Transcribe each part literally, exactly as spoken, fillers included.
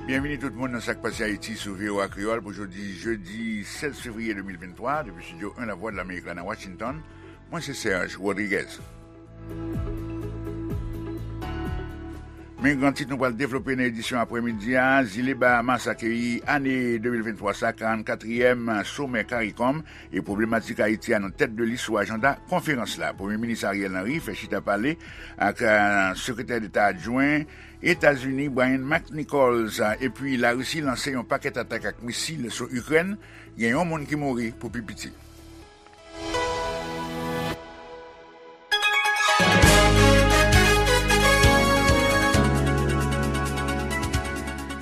Byenvini tout moun nan Sa k Pase Ayiti sou V O A Kreyòl pou jodi jedi sèz fevriye de mil venntwa, depi Estidyo en Lavwadlamerik la nan Washington. Mwen se Serge Rodriguez. Men gran tit nou pral devlope nan edisyon aprèmidi a, Zile Bahamas akeyi ane de mil venntwa sa, karannkatriyèm somè CARICOM, e pwoblematik Ayiti a nan tèt de lis sou ajanda konferans la. Premye Minis Ariel Henry fè chita pale ak, eh, Sekretè Deta Adjwen Etazini Brian McNichols, epi Larisi lanse yon pakèt atak ak misil sou Ikrèn, gen yon moun ki mouri pou pi piti.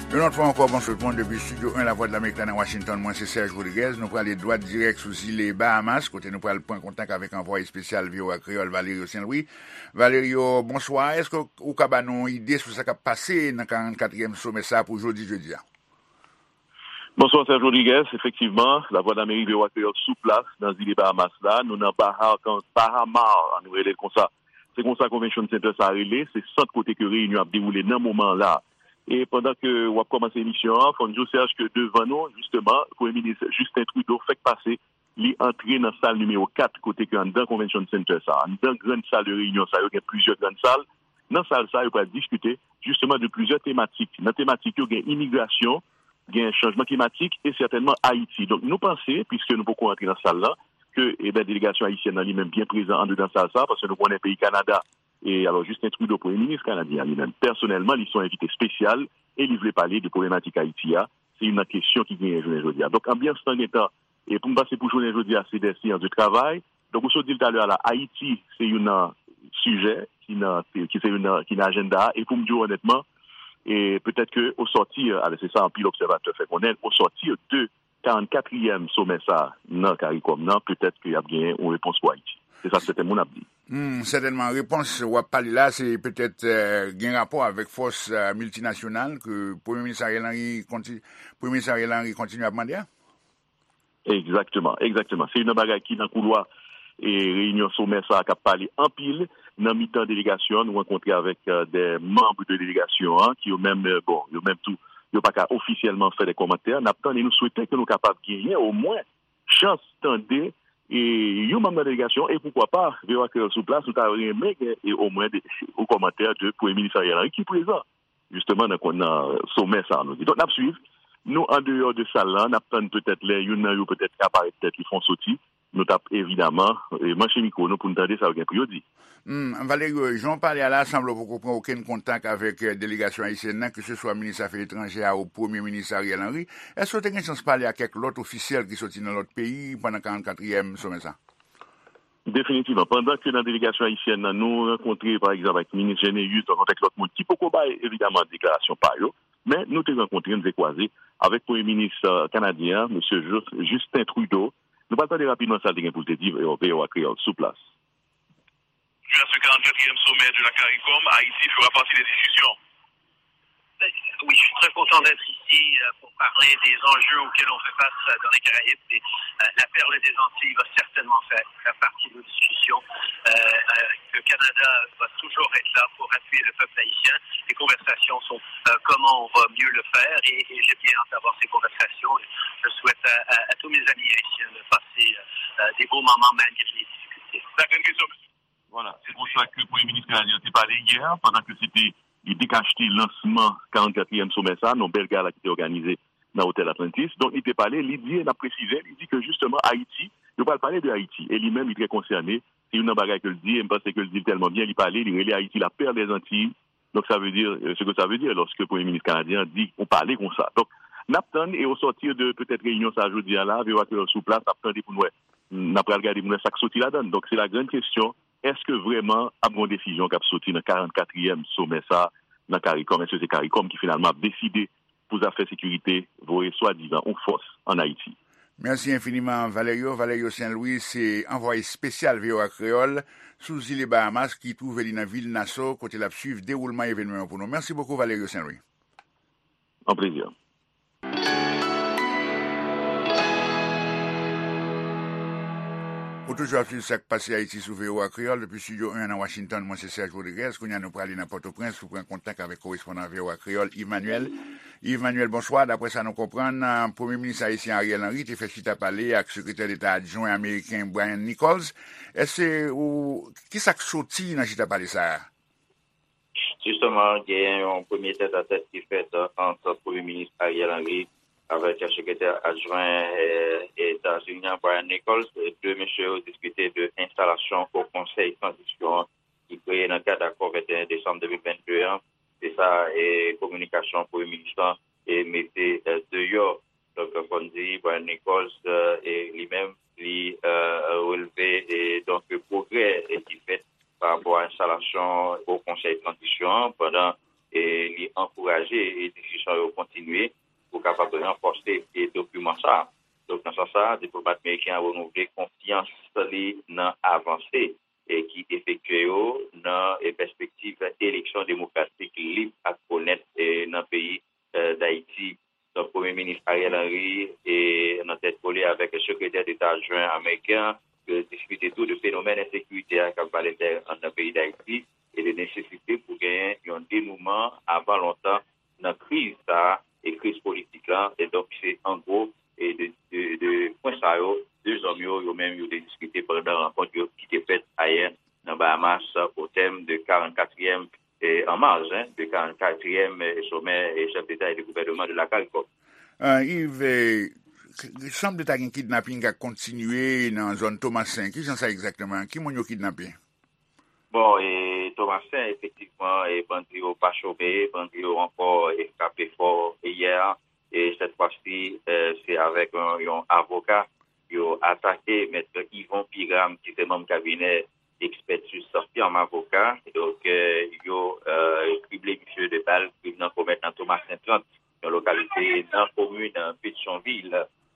Yon lòt fwa ankò, bonswa tout moun depi Estidyo en Lavwadlamerik la nan Washington. Mwen se Serge Rodriguez. Nou prale dwat dirèk sou zile Bahamas, kote nou pral pran kontak avèk anvwaye espesyal V O A Kreyòl Valerio Saint Louis. Valerio, bonswa. Èske ou ka ba nou yon ide sou sa k ap pase nan karannkatriyèm somè sa a pou jodi jedi a? Bonswa, Serge Rodriguez. Efektivman, Lavwadlamerik, V O A Kreyòl sou plas nan zile Bahamas la. Nou nan Baha-, Bahamar, nou rele l konsa. Se konsa Convention Center sa a rele, se sant kote ke reyinyon ap dewoule nan moman la. E pandan ke w ap kòmanse emisyon an, fò n di w, Serge, ke devan nou, jisteman, Premye Minis Justin Trudeau fèk pase, li antre nan sal nimewo kat, kote ke anndan Convention Center sa a, anndan grann sal de reyinyon sa yo, gen plizyè grann sal. Nan sal sa, yo pral diskite, jisteman, de plizyè tematik. Nan tematik yo, gen imigrasyon, gen chanjman klimatik e sètènman Ayiti. Donk, nou panse, piske nou poko antre nan sal la, ke, eben, delegasyon ayisyèn nan li menm byen prezan andedan sal sa, paske nou konnen peyi Kanada, e alò, Justin Trudeau, premye minis kanadyen an, li menm, pèsonèlman, li se yon envite espesyal e li vle pale de pwoblematik Ayiti a. Se youn nan kesyon ki genyen jounen jodi a. Donk, anbyans lan gentan, e pou m pase pou jounen jodi a, se des séances de travail. Donk, ou sot di l talè a la, Ayiti, se youn nan sijè ki nan, ki se youn nan, ki nan ajanda a. E pou m di w onètman, e petèt ke au sortir, alò, se sa anpil obsèvatè fè konnen, au sortir de karannkatriyèm somè sa a nan CARICOM nan, petèt ke y ap genyen yon repons pou Ayiti. Se sa sèten moun ap di. Hmm, sètènman, repons w ap pale la, se petèt, eh, gen rapò avèk fòs, eh, miltinasyonal ke Premye Minis Ariel Henry konti-, Premye Minis Ariel Henry kontinye ap mande a? Egzakteman, egzakteman. Se youn nan bagay ki nan koulwa e reyinyon somè sa a k ap pale anpil. Nan mitan delegasyon an, nou rankontre avèk, eh, de manm de delegasyon an, ki yo menm, eh, bon, yo menm tou, yo pa ka ofisyèlman fè de kòmantè. N ap tann e nou swete ke nou kapab genyen omwen chans tande, e, yon manm nan delegasyon, e poukwa pa, V O A Kreyòl sou plas, nou ta renmen gen, e, omwen de, yon kòmantè de Premye Minis Ariel Henry ki prezan, jisteman, nan, nan somè sa a, nou di. Donk, n ap swiv. Nou, andeyò de sal la, n ap tann petèt lè youn nan yo petèt ka parèt tèt li fè yon soti. Nou t ap, evidaman, e, manche mikwo nou pou n tande sa yo gen pou yo di. Hmm, Valerio, jan w pale a la, sanble w poko pran okenn kontak avèk, eh, delegasyon ayisyèn nan, keseswa minis afè etranjè a ou Premye Minis Ariel Henry. Èske w te gen chans pale ak kèk lòt ofisyèl ki soti nan lòt peyi pandan karannkatriyèm somè sa? Definitivman. Pandan ke nan delegasyon ayisyèn nan, nou rankontre, pa egzanp, ak minis Généus, nou rankontre ak lòt moun ki poko bay, evidaman, deklarasyon pa yo, men nou te rankontre, nou te kwaze avèk Premye Minis, eh, kanadyen an, mesye Jus-, Justin Trudeau. Nou pral tande rapidman sa l te gen pou l te di, V O A Kreyòl sou plas. À ce quarante-quatrième sommet de la CARICOM, Haïti fera partie des discussions. Oui, je suis très content d'être ici, euh, pour parler des enjeux auxquels on fait face, euh, dans les Caraïbes. Et, euh, la perle des Antilles va certainement faire, faire partie de nos discussions. Euh, euh, le Canada va toujours être là pour appuyer le peuple haïtien. Les conversations sont, euh, comment on va mieux le faire. Et, et j'ai bien hâte d'avoir ces conversations. Je souhaite à, à, à tous mes amis haïtiens de passer, euh, euh, des bons moments malgré les difficultés. Voilà, se konsa ke Premye Minis kanadyen an te pale yè, pandan ke se te li dekachte lansman karannkatriyèm somè sa, nan bèl gala ki te òganize nan Otèl Atlantis. Donk, li te pale, li di, e n ap presize, li di ke jisteman Ayiti, yo pral pale de Ayiti. E li menm, li trè konsène. Se youn nan bagay ke l di, e m panse ke l di l tèlman byen, li pale, li rele Ayiti la perle des Antilles. Donk, sa vle di, euh, ce que ça veut dire lorsque Premye Minis kanadyen an di yon pale konsa. Donk, n ap tann, e au sortir de petèt reyinyon sa a jodi a la, V O A Kreyòl sou plas, n ap tande pou n wè, n ap pral gade pou n wè sa k soti ladan l. Donk, se la grande question, èske vrèman ap gen yon desizyon k ap soti nan karannkatriyèm somè sa a nan CARICOM? Èske se CARICOM ki finalman ap deside pou zafè sekirite voye swadizan yon fòs ann Ayiti? Mèsi enfiniman, Valerio. Valerio Saint Louis se anvwaye espesyal V O A Kreyòl sou zile Bahamas ki twouve li nan vil Nassau, kote l ap swiv dewoulman evènman yo pou nou. Mèsi bokou, Valerio Saint Louis. An plezi. Ou toujou ap swiv Sa k Pase Ayiti sou V O A Kreyòl depi Estidyo en nan Washington. Mwen se Serge Rodriguez. Kounye a nou prale nan Pòtoprens pou pran kontak avèk korespondan V O A Kreyòl, Yves Manuel. Yves Manuel, bonswa. Daprè sa nou konprann, eh, Premye Minis ayisyen Ariel Henry te fè chita pale ak Sekretè Deta Adjwen ameriken Brian Nichols. Èske ou, ki sa k soti nan chita pale sa a? Jisteman, gen yon premye tètatèt ki fèt, eh, ant Premye Minis Ariel Henry avèk Sekretè Adjwen, eh, Etazini an, Brian Nichols. De mesye yo diskite de enstalasyon Wo Konsèy Tranzisyon an ki kreye nan kad akò venteyen desanm de mil vennde an. Se sa, eh, kominikasyon Premye Minis lan, eh, mete, eh, deyò. Donk, fò n di, Brian Nichols, eh, e li menm, li, eh, relve, eh, donk, pwogrè, eh, ki fèt pa rapò a enstalasyon Wo Konsèy Tranzisyon an, pandan, eh, li ankouraje, eh, diskisyon yo kontinye pou kapab ranfòse, eh, dokiman sa a. Donk, nan sans sa a, diplomat ameriken an renouvle konfyans li nan avanse, eh, ki efektye yo nan, eh, pèspektiv eleksyon demokratik lib ak onèt, eh, nan peyi, eh, Dayiti. Donk, Premye Minis Ariel Henry, e, nan tèt kole avèk Sekretè Deta Adjwen ameriken an, yo diskite tou de fenomèn ensekirite a k ap vale tè anndan peyi Dayiti e de nesesite pou genyen yon denouman avan lontan nan kriz sa a e kriz politik la. E donk, se an gwo e de, de, de pwen sa yo, de zòm yo, yo menm, yo te diskite pandan rankont yo ki te fèt ayè nan Bahamas, o tèm de karannkatriyèm, e, an mars, hein, de karannkatriyèm, e, somè, e, chèf deta e de gouvènman de la CARICOM. Ah, Yves, eh, k- k- sanble ta gen kidnaping k ap kontinye nan zòn Tomasen. Ki jan sa egzakteman? Ki moun yo kidnape? Bon, e Tomasen, efektivman, e bandi yo pa chome, bandi yo ankò, e frape fò, e yè, e sèt fwa si, e se avèk yon, yon avoka yo atake mèt Yvon Piram, ki se manm kabinè ekspètis firm avoka. Donk, e, yo, e, krible misye de bal, krim nan komèt nan Tomasen trant, yon lokalite nan komin Petyonvil.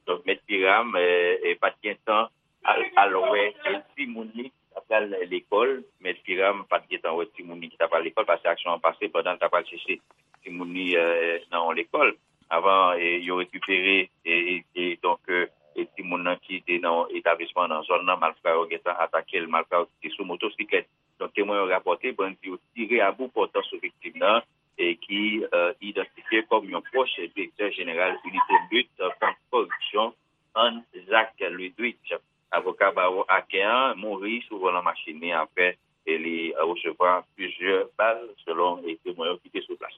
Donk, mèt Piram, e, e pa t gen tan al, al wè, e, timoun li ki t ap pral lekòl. Mèt Piram pa t gen tan wè timoun li ki t ap pral lekòl, paske aksyon an pase pandan l t ap al chèche timoun li, e, nan yon lekòl. Avan, e, yo rekipere, e, e, e, donk, e, e timoun nan ki te nan yon etablisman nan zòn nan, malfra yo gentan atake l, malfra yo ki te sou motosiklèt. Donk, temwen yo rapòte, bandi yo tire a bout pòtan sou viktim nan, e ki, e, idantifye kòm yon pwòch direktè jeneral Inite Lit Kont Kòripsyon, Anne Jacques Ludwig. Avoka bawo Aken an mouri sou volan machin li apre, e li, e, resevwa plizyè bal, selon, e, temwen yo ki te sou plas.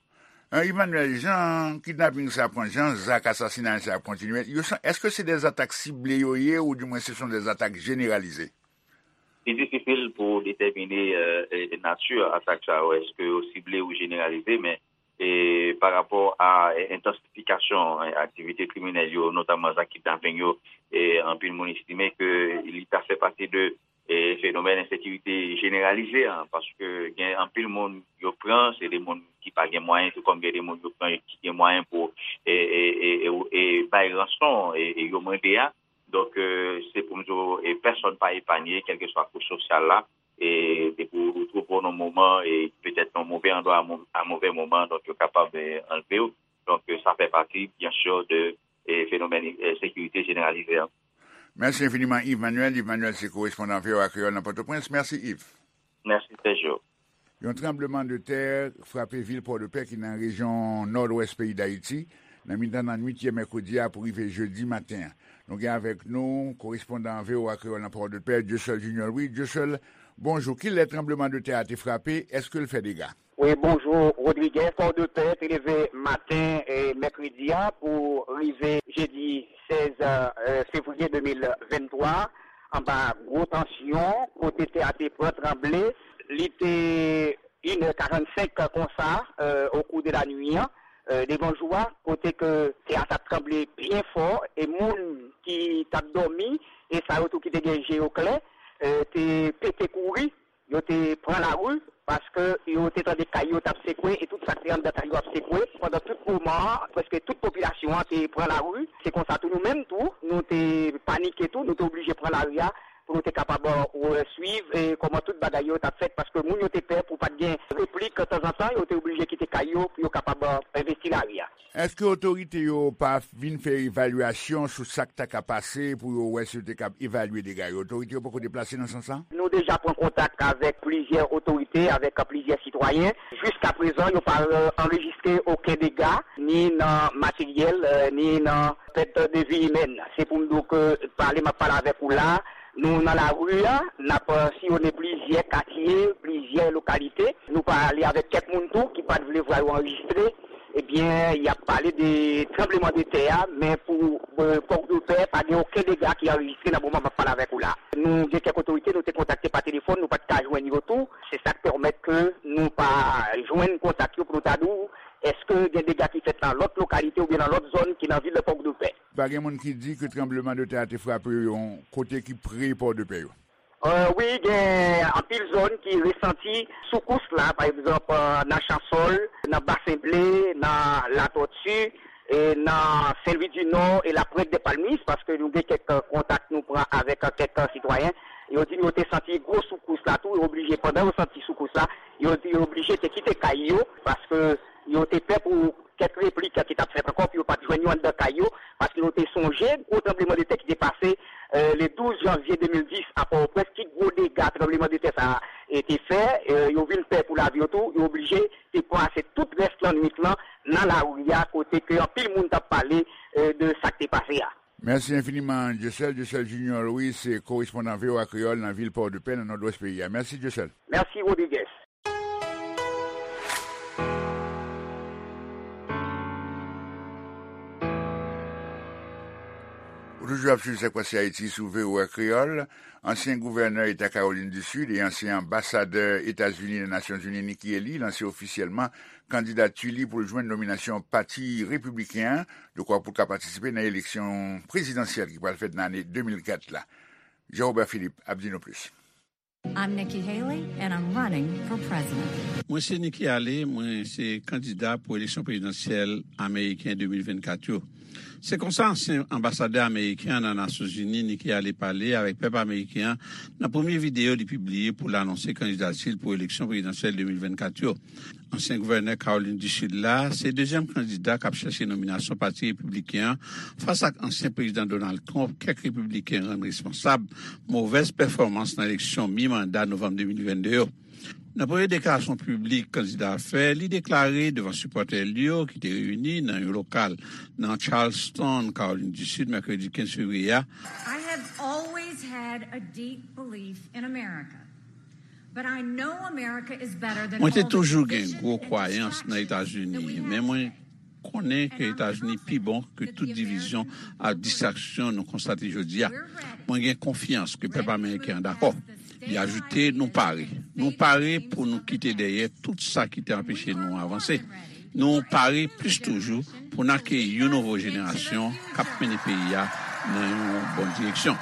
E, Emmanuel, jan kidnaping sa pran, jan zak asasinay sa kontinye, yo san- èske se de zatak sible yo ye, oudimwen se son de zatak jeneralize? Li difisil pou detèmine, e, e, nati atak sa yo, èske yo sible ou jeneralize, men, e, pa rapò a, e, entansifikasyon, e, aktivite kriminèl yo, notamman zak kidnaping yo, e, anpil moun estime ke li ta fè pati de, e, fenomèn ensekirite jeneralize an, paske gen anpil moun yo pran, se de moun ki pa gen mwayen, tou kòm gen de moun yo pran ki gen mwayen pou, e, e, e, e, e bay ranson, e, e yo mande a. Donk, e, se pou m di w, e, pèsonn pa epanye, kèlkeswa kouch sosyal la, e, depi w twouve w nan moman, e petèt nan move andwa a mo- a move moman, donk yo kapab, e, anlve w. Donk, e, sa fè pati, byen si, de, e, fenomèn, e, sekirite jeneralize an. Mèsi enfiniman, Yves Manuel. Yves Manuel se korespondan V O A Kreyòl nan Pòtoprens. Mèsi, Yves. Mèsi, Sergio. Yon tranblemanntè frape vil Pòdepè ki nan rejyon nòdwès peyi Dayiti, nan mitan lannwit yè mèkredi a pou rive jedi maten an. Nou gen avèk nou korespondan V O A Kreyòl nan Pòdepè, Dieuseul Junior Louis. Dieuseul, bonjou. Kilè tranblemanntè a te frape? Èske l fè dega? Wi, bonjou, Rodriguez. Pòdepè te leve maten, e, mèkredi a pou rive jedi sèz, e, fevriye de mil venntwa, anba gwo tansyon, kote tè a te pran tranble. Li te inè karannsenk konsa, e, o kou de la nwi an, e, devan jou a, kote ke tè a t ap tranble byen fò, e moun ki t ap dòmi, e sa yo tou ki te gen je yo klè, e, te pete kouri, yo te pran lari, paske yo te tande kay yo t ap sekwe, e tout sa k te anndan kay yo ap sekwe. Pandan tout moman an, prèske tout popilasyon an te pran lari. Se konsa tou nou menm tou, nou te panike tou, nou te oblije pran lari a, Pou nou te kapab, e, swiv, e, kòman tout bagay yo t ap fèt, paske moun yo te pè pou pa t gen replik tanzantan, yo te oblije kite kay yo pou yo kapab, e, envesti lari a. Èske otorite yo pa vin fè evalyasyon sou sa k ta ka pase pou yo wè si yo te kab evalye dega yo? Otorite yo poko deplase nan sans sa? Nou deja pran kontak avèk plizyè otorite, avèk plizyè sitwayen. Jiskaprezan, yo pa, e, anrejistre okenn dega, ni nan materyèl, e, ni nan pèt de vi imèn. Se pou m di w ke pale m ap pale avèk ou la, nou nan lari a, n ap, e, siyonnen plizyè katye, plizyè lokalite. Nou pale avèk kèk moun tou ki pa t vle vwa yo anrejistre. Ebyen, y ap pale de tranblemanntè a, men pou, e, Pòdpè, pa gen okenn dega ki anrejistre nan moman m ap pale avèk ou la. Nou gen kèk otorite, nou te kontakte pa telefòn, nou pa t ka jwenn yo tou. Se sa k pèmèt ke nou pa jwenn kontak yo pou nou ta di w èske gen dega ki fèt nan lòt lokalite oubyen nan lòt zòn ki nan vil Pòdpè. Pa gen moun ki di ke tranblemanntè a te frape yon kote ki pre Pòdpè yo. E, wi, gen anpil zòn ki resanti soukous la, pa egzanp, e, nan Chansòl, nan Basen Ble, nan Latòti, e, nan Sen Lwi di Nò e Lapwent de Palmis, paske nou gen kèk, e, kontak nou pran avèk, e, kèk, e, sitwayen. Yo di nou yo te santi gwo soukous la tou, yo oblije, pandan yo santi soukous la, yo, yo oblije te kite kay yo, paske yo te pè pou kèk replik ki t ap fèt ankò, pou yo pa t jwenn yo anndan kay yo, paske yo te sonje gwo tranblemanntè ki te pase, e, le douz janvye de mil dis a Pòtoprens, ki gwo dega tranblemanntè sa a, e, te fè, e, yo vin pè pou lavi yo tou, yo oblije te pase tout rès lannwit lan nan lari a, kote ke anpil moun t ap pale, e, de sa k te pase a. Mèsi enfiniman, Dieuseul. Dieuseul Junior Louis se korespondan V O A Kreyòl nan vil Pòdepè, nan nòdwès peyi a. Mèsi, Dieuseul. Mèsi, Rodriguez. Ou toujou ap swiv Sa k Pase Ayiti sou V O A Kreyòl. Ansyen gouvènè eta Kawolin di Sid e ansyen anbasadè Etazini nan Nasyonzini Nikki Haley lanse ofisyèlman kandidati li pou l jwenn nominasyon Pati Repibliken an, dekwa pou l ka patisipe nan eleksyon prezidansyèl ki pral fèt nan ane de mil kat la. Jean Robert Philippe ap di nou plis. I'm Nikki Haley, and I'm running for president. Mwen se Nikki Haley, mwen se kandida pou eleksyon prezidansyèl ameriken de mil vennkat yo. Se konsa ansyen anbasadè ameriken an nan Nasyonzini, Nikki Haley, pale avèk pèp ameriken an nan premye videyo li pibliye pou l anonse kandidati l pou eleksyon prezidansyèl de mil vennkat yo. Ansyen gouvènè Kawolin di Sid la se dezyèm kandida k ap chèche nominasyon Pati Repibliken an fas ak ansyen Prezidan Donald Trump, kèk Repibliken rann responsab movèz pèfòmans nan eleksyon mi-manda novanm de mil vennde yo. Nan premye deklarasyon piblik kandida a fè, li deklare devan sipòtè li yo ki te reyini nan yon lokal nan Charleston, Kawolin di Sid, mèkredi kenz fevriye a, I have always had a deep belief in America. Mwen te toujou gen gwo kwayans nan Etazini, men mwen konnen ke Etazini pi bon ke tout divizyon ak distraksyon nou konstate jodi a. Mwen gen konfyans ke pèp ameriken an dakò. Li ajoute, nou pare. Nou pare pou nou kite dèyè tout sa ki te anpeche nou avanse. Nou pare plis toujou pou n akeyi yon nouvo jenerasyon k ap mennen peyi a nan yon bon direksyon.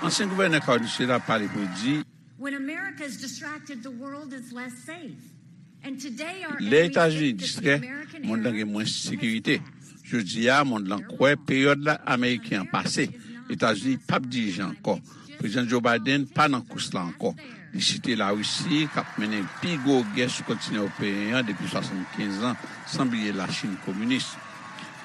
Ansyen gouvènè Kawolin di Sid la pale pou l di, When America is distracted, the world is less safe. And today our Lè enemies Etazini think that the distrè, American monn nan era gen mwens is sekirite. Jodi a, monn nan kwè peryòd la ameriken an pase. Etazini p ap dirije ankò. Prezidan Joe Biden pa nan kous la ankò. Li site Larisi k ap mennen pi gwo gè sou kontinan ewopeyen an depi swasannkenz an, san bliye Lachin kominis.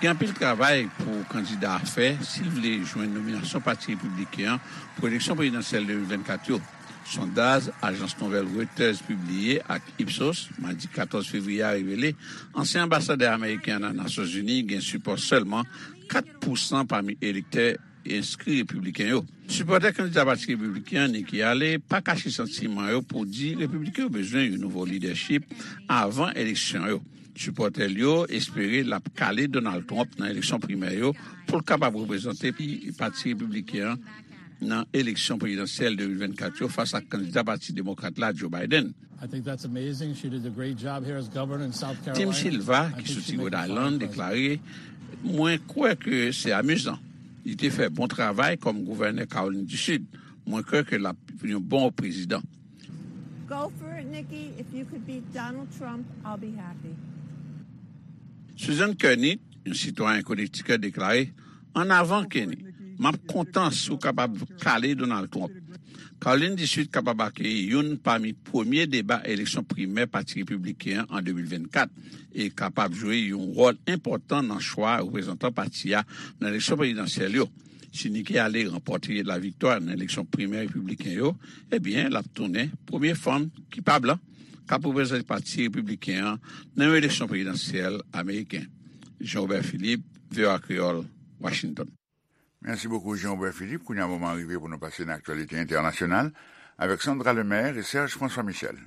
Gen anpil travay pou kandida a fè si l vle jwenn nominasyon Pati Repibliken an pou eleksyon prezidansyèl de mil vennkat yo. Sondaj ajans nouvèl Reuters pibliye ak Ipsos, madi katòz fevriye a, revele ansyen anbasadè ameriken an nan Nasyonzini gen sipò sèlman kat pousan pami elektè enskri repibliken yo. Sipòtè kandida Pati Repibliken an, Nikki Haley, pa kache santiman yo pou di repibliken yo bezwen yon nouvo lidèchip avan eleksyon yo. Sipòtè l yo espere l ap kale Donald Trump nan eleksyon primè yo pou l kapab reprezante Pati Repibliken an nan eleksyon prezidansyèl de mil vennkat yo fas ak kandida Pati Demokrat la, Joe Biden. I think that's amazing. She did a great job here as governor in South Carolina. Tim Silva, ki soti Rhode Island, deklare, mwen kwè ke se amizan. Li te fè bon travay kòm gouvènè Kawolin di Sid. Mwen kwè ke l ap yon bon prezidan. Go for it, Nikki. If you could beat Donald Trump, I'll be happy. Susan Kearney, yon sitwayen Connecticut, deklare, ann avan, Kenny. M ap kontan si w kapab kale Donald Trump. Kawolin di Sid kapab akeyi youn pami premye deba eleksyon primè Pati Repibliken an an de mil vennkat e kapab jwe yon wòl enpòtan nan chwa reprezantan pati a nan eleksyon prezidansyèl yo. Si Nikki Haley ranpòte laviktwa nan eleksyon primè repibliken yo, ebyen, l ap tounen premye fanm ki pa blan k ap reprezante Pati Repibliken an nan yon eleksyon prezidansyèl ameriken. Jean Robert Philippe, V O A Kreyòl, Washington. Mèsi bokou, Jean Robert Philippe. Kounye a, moman an rive pou nou pase nan aktyalite entènasyonal avèk Sandra Lemaire e Serge François Michel.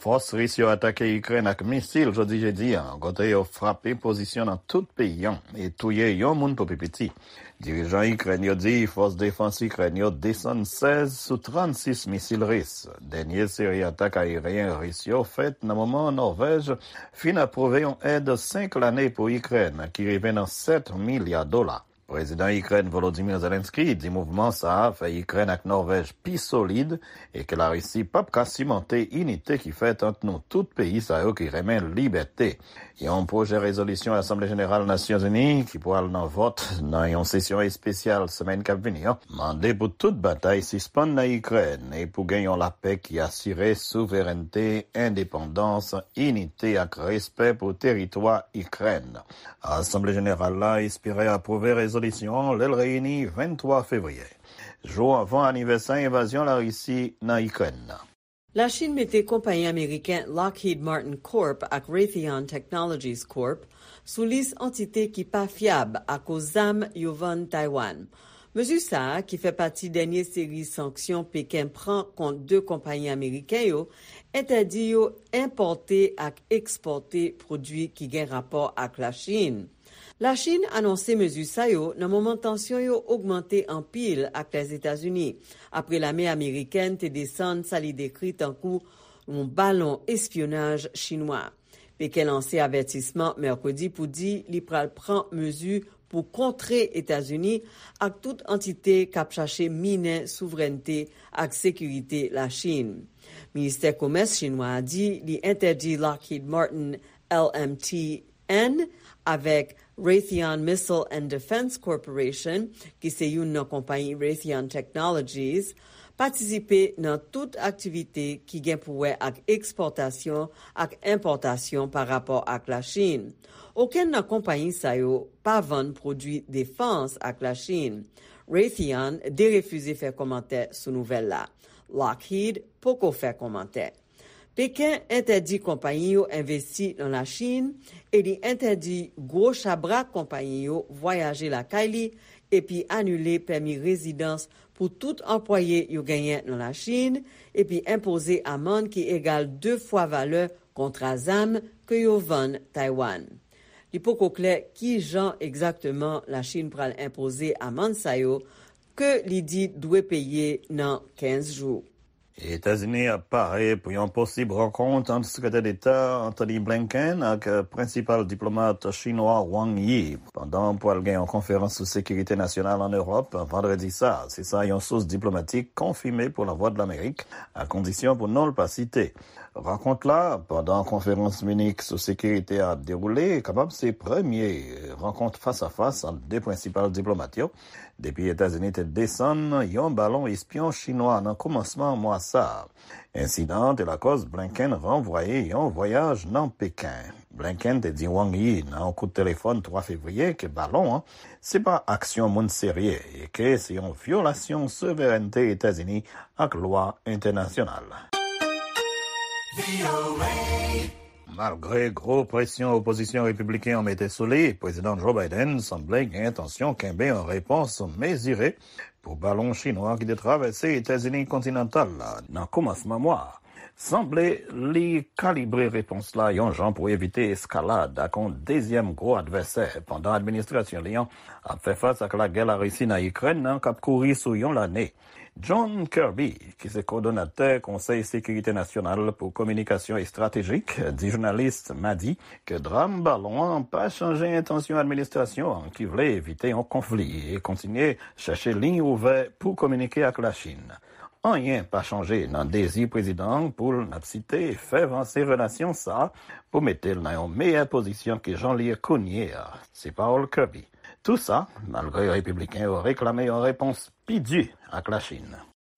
Fòs Ris yo atake Ikrèn ak misil jodi jedi a, kote yo frape pozisyon nan tout peyi an e touye yon moun pou pi piti. Dirijan Ikrèn yo di fòs defans Ikrèn yo desann sèz sou trannsis misil Ris. Dènye seri atak aeryen Ris yo fèt nan moman Nòvèj fin apwouve yon èd senk lane pou Ikrèn ki rive nan sèt milya dola. Prezidan Ikrèn Volodymyr Zelensky di mouvman sa a fè Ikrèn ak Nòvèj pi solid e ke Larisi p ap ka simante inite ki fèt ant nou tout peyi sa yo ki renmen libète. Yon pwojè rezolisyon Asanble Jeneral Nasyonzini ki pral nan vòt nan yon sesyon espesyal semèn k ap vini an mande pou tout batay sispann nan Ikrèn e pou gen yon lapè ki asire souverènte, endepandans, inite ak respè pou teritwa Ikrèn. Asanble Jeneral la espere apwouve rezolisyon an lè l reyini venntwa fevriye, jou anvan anivèsè envazyon Larisi nan Ikrèn nan. Lachin mete konpayi ameriken Lockheed Martin Corp ak Raytheon Technologies Corp sou lis antite ki pa fyab akoz zam yo vann Taiwan. Mezi sa a, ki fè pati dènye seri sanksyon Peken pran kont de konpayi ameriken yo, entèdi yo enpòte ak ekspòte pwodui ki gen rapò ak Lachin. Lachin anonse mezi sa yo nan moman tansyon yo ogmante anpil ak Lèzetazini, apre lame amerikèn te desann sa li dekri tankou yon balon espyonaj chinwa. Peken lanse avètisman mèkredi pou di li pral pran mezi pou kontre Etazini ak tout antite k ap chache minen souvrènte ak sekirite Lachin. Ministè Komès chinwa a di li entèdi Lockheed Martin L M T N avèk Raytheon Missile and Defense Corporation, ki se youn nan konpayi Raytheon Technologies, patisipe nan tout aktivite ki gen pou wè ak ekspòtasyon ak enpòtasyon pa rapò ak Lachin. Okenn nan konpayi sa yo pa vann pwodui defans ak Lachin. Raytheon derefize fè kòmantè sou nouvèl la. Lockheed poko fè kòmantè. Peken entèdi konpayi yo envesti nan Lachin e li entèdi gwo chabrak konpayi yo vwayaje lakay li epi anile pèmi rezidans pou tout anplwaye yo genyen nan Lachin epi enpoze amann ki egal de fwa valè kontra zam ke yo vann Taiwan. Li poko klè ki jan egzakteman Lachin pral enpoze amann sa yo ke li di dwe peye nan kenz jou. Etazini ap pare pou yon posib rankont ant Sekretè Deta Antony Blinken ak prensipal diplomat chinwa Wang Yi, pandan pral gen yon konferans sou sekirite nasyonal ann Ewòp vandredi sa a. Se sa yon sous diplomatik konfime pou Lavwadlamerik, a kondisyon pou non l pa site. Rankont la, pandan konferans Minik sou sekirite a ap dewoule, kapab se premye rankont fas a fas ant de prensipal diplomat yo depi Etazini te desann yon balon espyon chinwa nan kòmansman mwa sa a. Ensidan an te lakòz Blinken ranvwaye yon vwayaj nan Peken. Blinken te di Wang Yi nan yon kout telefòn twa fevriye ke balon an se pa aksyon moun serye e ke se yon vyolasyon souverènte Etazini ak lwa entènasyonal. Malgre gwo presyon opozisyon repibliken an mete sou li, Prezidan Joe Biden sanble gen entansyon kenbe yon repons mezire pou balon chinwa ki te travèse Etazini kontinantal la nan kòmansman mwa a. Sanble li kalibre repons la yon jan pou evite eskalad ak yon dezyèm gwo advèsè pandan administrasyon li an ap fè fas ak lagè Larisi nan Ikrèn nan k ap kouri sou yon lane. John Kirby, ki se kowòdonatè Konsèy Sekirite Nasyonal pou Kominikasyon Estratejik, di jounalis madi ke dram balon an pa chanje entansyon administrasyon an ki vle evite yon konfli e kontinye chèche liy ouvè pou kominike ak Lachin. Anyen pa chanje nan dezi prezidan an pou l, n ap site, fè vanse relasyon sa a pou mete l nan yon meyè pozisyon ke jan l ye kounye a. Se pawòl Kirby. Tou sa, malgre repibliken yo reklame yon repons pi di ak Lachin.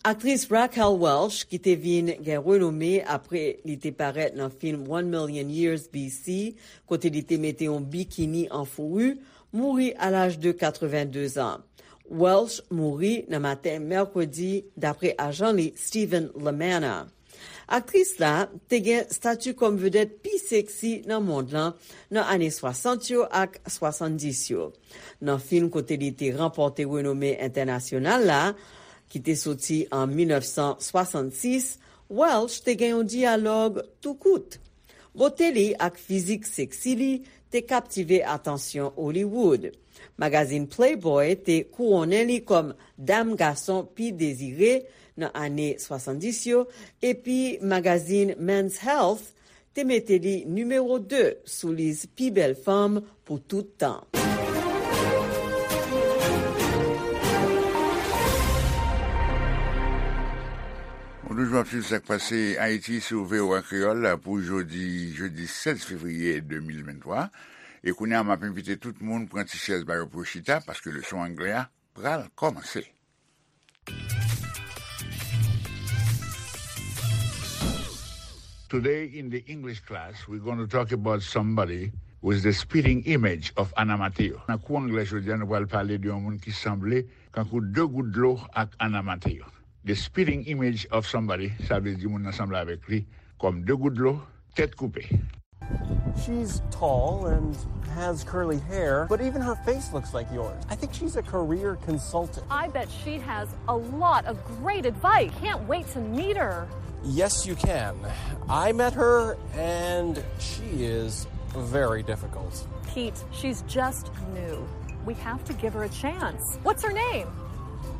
Aktris Raquel Welch, ki te vin gen renome apre li te parèt nan fim One Million Years B C, kote li te mete yon bikini an fouri, mouri a laj de katrevenndezan. Welch mouri nan maten mèkredi, dapre ajan li Stephen Lamanna. Aktris la te gen stati kòm vedèt pi seksi nan mond lan nan ane swasant yo ak swasanndis yo. Nan fim kote li te ranpòte renome entènasyonal la, ki te soti an mil nèf san swasannsis, Welch te gen yon dyalòg tou kout. Bote li ak fizik seksi li te kaptive atansyon Hollywood. Magazin Playboy te kouwonnen li kòm dam gason pi dezire nan ane swasanndis yo, epi magazin Men's Health te mete li nimewo de sou lis pi bèl fanm pou tout tan. Ou toujou ap swiv sa k pase Ayiti sou V O A Kreyòl pou jodi, jedi sèz fevriye de mil venntwa. E kounye a, m ap envite tout moun pran ti chèz ba yo pou yo chita, paske leson anglè a pral kòmanse. Today in the English class, we're going to talk about somebody who is the spitting image of Anna Mateo. Nan kou anglè jodi a, nou pral pale de yon moun ki sanble kankou de gout dlo ak Anna Mateo. The spitting image of somebody, sa vle di moun nan sanble avèk li kòm de gout dlo, tèt koupe. She's tall and has curly hair, but even her face looks like yours. I think she's a career consultant. I bet she has a lot of great advice. Can't wait to meet her. Yes, you can. I met her, and she is very difficult. Pete, she's just new. We have to give her a chance. What's her name?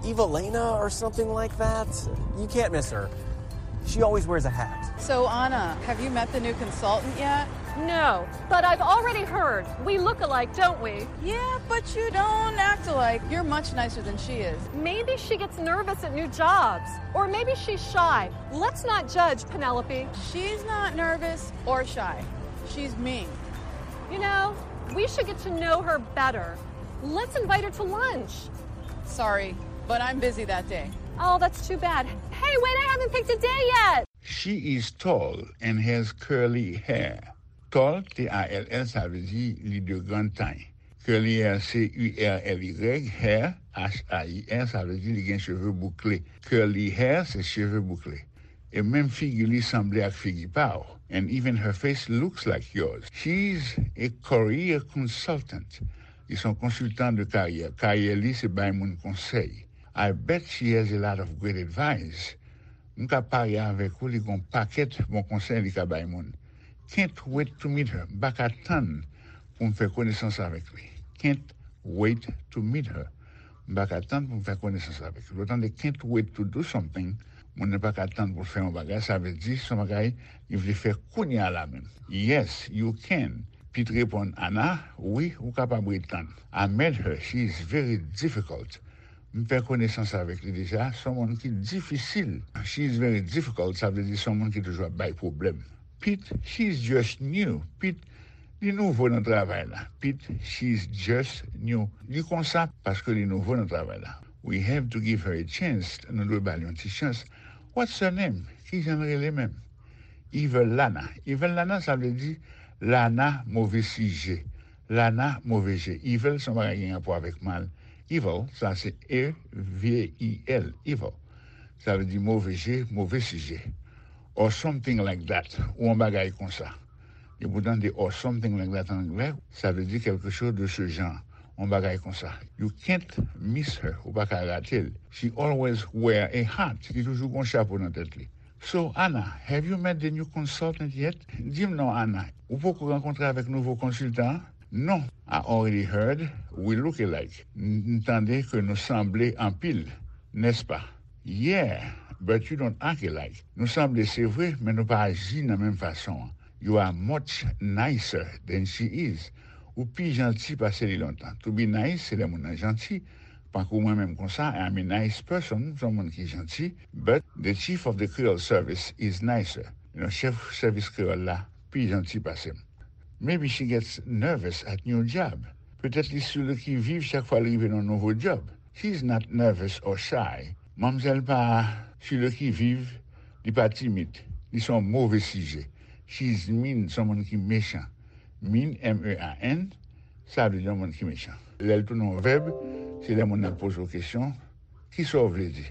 Evelena or something like that. You can't miss her. She always wears a hat. So, Anna, have you met the new consultant yet? No, but I've already heard we look alike, don't we? Yeah, but you don't act alike. You're much nicer than she is. Maybe she gets nervous at new jobs. Or maybe she's shy. Let's not judge, Penelope. She's not nervous or shy. She's mean. You know, we should get to know her better. Let's invite her to lunch. Sorry, but I'm busy that day. Oh, that's too bad. Hey, wait, I haven't picked a day yet! She is tall and has curly hair. Tall, T A L L, sa vle di li de grande taille. Curly hair, C U R L Y, hair, H A I R, sa vle di li gen cheve boukle. Curly hair, se cheve boukle. E menm figi li sanble ak figi pa w. And even her face looks like yours. She's a career consultant. Li se yon konsiltan de karyè. Karyè li se bay moun konsèy. I bet she has a lot of great advice. M ka parye avèk ou, li gen yon pakèt bon konsèy li ka bay moun. Can't wait to meet her. M pa ka tann pou m fè konesans avèk li. Can't wait to meet her. M pa ka tann pou m fè konesans avèk li. Lè w tande can't wait to do something, moun nan pa ka tann pou l fè yon bagay, sa vle di se yon bagay li vle fè kounye a la menm. Yes, you can. Pete reponn Anna, wi, ou kapab ret tann. I met her, she is very difficult. M fè konesans avèk li deja, se yon moun ki difisil. She is very difficult, sa vle di se yon moun ki toujou ap bay pwoblèm. Pete, she is just new. Pete, li nouvo nan travay la. Pete, she is just new. Li konsa paske li nouvo nan travay la. We have to give her a chance. Nou dwe ba l yon ti chans. What's her name? Kijan l rele menm? Evil Lana. Evil Lana, sa vle di Lana move sijè. Lana move je. Evil se yon bagay ki gen rapò avèk mal. Evil, sa se E V I L, evil. Sa vle di move je, move sijè. Or something like that, ou yon bagay konsa. Depi w tande or something like that an anglè, sa vle di quelque chose de ce genre, yon bagay konsa. You can't miss her, ou pa ka rate l. She always wear a hat, li toujou gen yon chapo nan tèt li. So, Anna, have you met the new consultant yet? Di m non, Anna, ou poko rankontre avèk nouvo konsiltan an? Non, I already heard we look alike. M m tande ke nou sanble anpil, nèspa? Yeah, but you don't act alike. Nou sanble, se vre, men nou pa aji nan menm fason an. You are much nicer than she is. Ou pi janti pase li lontan. To be nice, se lè moun nan janti. Tankou mwen menm konsa, I'm a nice person, m se yon moun ki janti, but the chief of the Creole service is nicer. You know, chèf sèvis kreyòl la pi janti pase m. Maybe she gets nervous at new job. Petèt li sou le qui vive chak fwa l rive nan nouvo djòb. She is not nervous or shy. Manmzèl pa sou le qui vive, li pa timid. Li se yon move sijè. She is mean, se yon moun ki mechan. Mean, M E A N, sa vle di yon moun ki mechan. Lè l tounen yon vèb, se lè moun nan poze w kesyon, ki sa w vle di?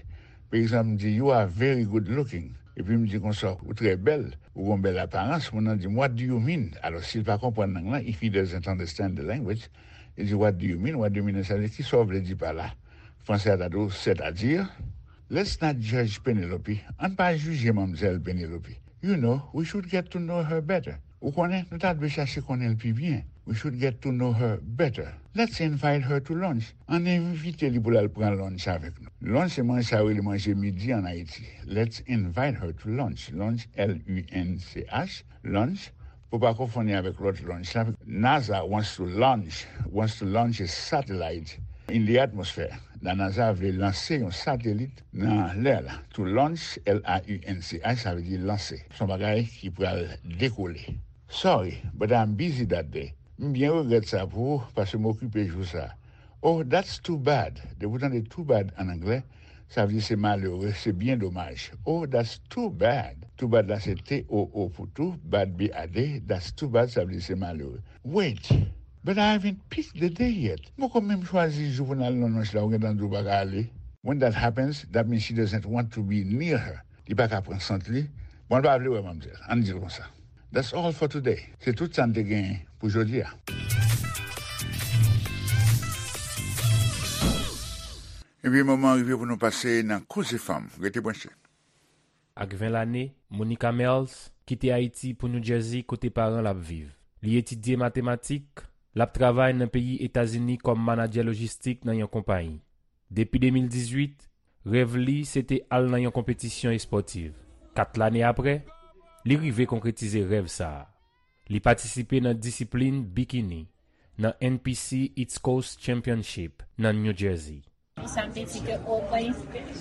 Pa egzanp, m di, "You are very good looking." Epi m di konsa, "Ou trè bèl, ou gon bèl aparans." Moun nan di m, "What do you mean?" Alò, si l pa konprann lang lan, if he doesn't understand the language, li di, "What do you mean? What do you mean?" Sa vle di, "Ki sa w vle di pa la?" Fransè a ta di w, "C'est-à-dire?" Let's not judge Penelope. Ann pa jije manmzèl Penelope. You know, we should get to know her better. Ou konnen, nou ta dwe chache konnen l pi byen. We should get to know her better. Let's invite her to lunch. Ann envite li pou l al pran lunch avèk nou. Lunch se manje sa yo rele manje midi ann Ayiti. Let's invite her to lunch. Lunch, L U N C H, lunch. Pou pa konfonn li avèk lòt lunch la. NASA wants to launch, wants to launch a satellite in the atmosphere. La NASA vle lanse yon satelit nan lè la. To launch, L A U N C H, sa vle di lanse. Se yon bagay ki pral dekole. Sorry, but I'm busy that day. M byen regrèt sa pou ou, paske m okipe jou sa. Oh, that's too bad. Depi w tande too bad ann anglè, sa vle di se malere, se byen domaj. Oh, that's too bad. Too bad la se T O O pou tou, bad, B A D. That's too bad, sa vle di se malere. Wait, but I haven't picked the day yet. M poko menm chwazi jou pou n al nan lunch la, ou gentan di w pa ka ale. When that happens, that means she doesn't want to be near her. Li pa ka pran sant li. Bon, l pa vle wè manmzèl. Ann di l konsa. That's all for today. Se tout sa n te genyen pou jodi a. Ebyen, moman an rive pou nou pase nan Koze Fanm. Rete branche. Ak ven lane, Monica Merles kite Ayiti pou New Jersey kote paran l ap viv. Li etidye matematik, l ap travay nan peyi Etazini kòm manadjè lojistik nan yon konpayi. Depi de mil dizuit, rèv li se te al nan yon konpetisyon espòtiv. Kat lane apre, li rive konkretize rèv sa a. Li patisipe nan disiplin bikini nan N P C East Coast Championship nan New Jersey. Sa m te di ke, o, mwen,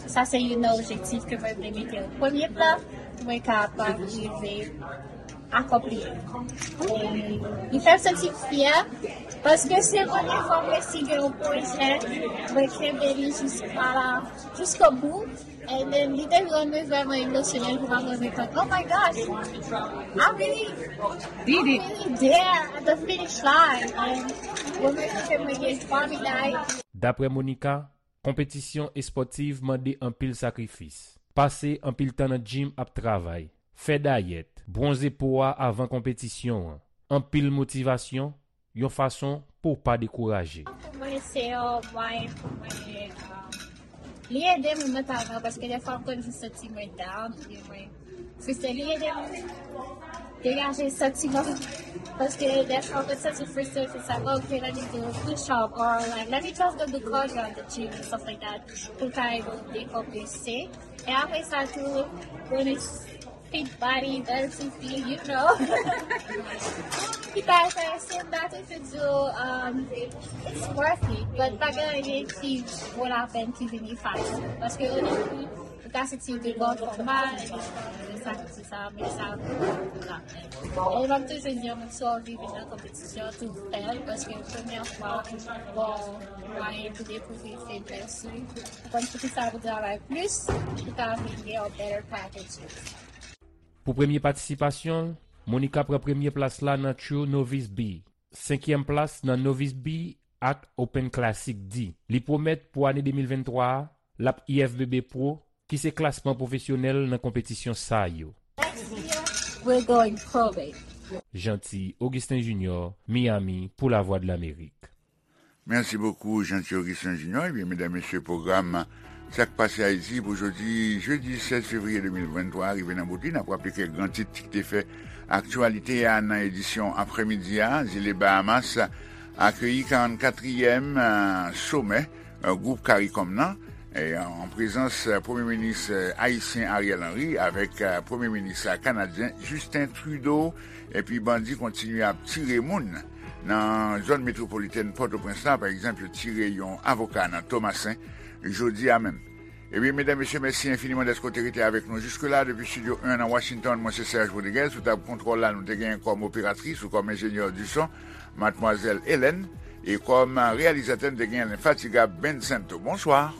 sa se youn nan objektif ke mwen vle mete an premye plan, pou mwen kapab rive akonpli. E li fè m santi m fyè, paske se premye fwa m resi gen yon pwojè, mwen kenbe li jiska la, jiskobou. And then, li te rann mwen vrèman emotional pou mwen rekonèt, oh my gosh, I really, I really there at the finish line. And mwen menm ke mwen gen twa meday. Daprè Monica, konpetisyon espòtiv mande anpil sakrifis. Pase anpil tan nan gym ap travay, fè dayèt, bwonze po a avan konpetisyon an, anpil motivasyon, yon fason pou w pa dekouraje. Pou mwen, se yon mwayen pou mwen, um, li ede mwen mantalman, paske dèfwa m konn jis santi mwen down, oubyen mwen frustre. Li ede m degaje santiman, paske dèfwa m konn santi frustre, se sa, "Oh, okay, let me do a push up," or, like, "Let me just go do cardio at the gym," and stuff like that, pou l ka ede w dekonprese. E apre sa tou, bonus fit body, bèl ti fi, you know. Ki ta enterese m, that if it's, um, it's worth it. But pa gen anyen ki vo lapèn ki vini fasil. Paske o debi, ou ka santi w te bon fòma, e sa, sa, men sa vo lapèn. E m ap toujou di, yon moun si w anvi vin nan konpetisyon, tou fè l, paske premyè fwa, bon, mwayen pou dekouvri feblès ou. Ou konn poukisa pou travay plis, pou ka vin gen yon better packages. Pou premye patisipasyon l, Monica pran premye plas la nan True Novice B, senkyèm plas nan Novice B ak Open Classic D. Li pwomèt pou ane de mil venntwa a, l ap I F B B Pro, ki se klasman pwofesyonèl nan konpetisyon sa yo. Next year, we're going pro, baby. Jeanty Augustin Junior, Miami, pou Lavwadlamerik. Merci beaucoup, Jeanty Augustin Junior. Ebyen, medam, mesye, pwogram Sa k pase Ayiti pou jodi, jedi sèz fevriye de mil venntwa, rive nan bout li. N ap raple kèk gran tit ki te fè aktyalite a nan edisyon aprèmidi a. Zile Bahamas akeyi karannkatriyèm, eh, somè, eh, gwoup CARICOM nan, eh, an prezans, eh, Premye Minis, eh, ayisyen Ariel Henry avèk, eh, Premye Minis, eh, kanadyen Justin Trudeau. Epi bandi kontinye ap tire moun nan zòn metwopolitèn Pòtoprens la. Pa egzanp, yo tire yon avoka nan Tomasen jodi a menm. Ebyen, medam, mesye, mèsi enfiniman dèske w te rete avèk nou jiske la. Depi Estidyo en nan Washington, mwen se Serge Rodriguez. Sou tab kontwòl la, nou te genyen kòm operatris ou kòm enjenyè di son, Madmwazèl Hélène. E kòm reyalizatè, n te gen lenfatigab Ben Santo. Bonswa.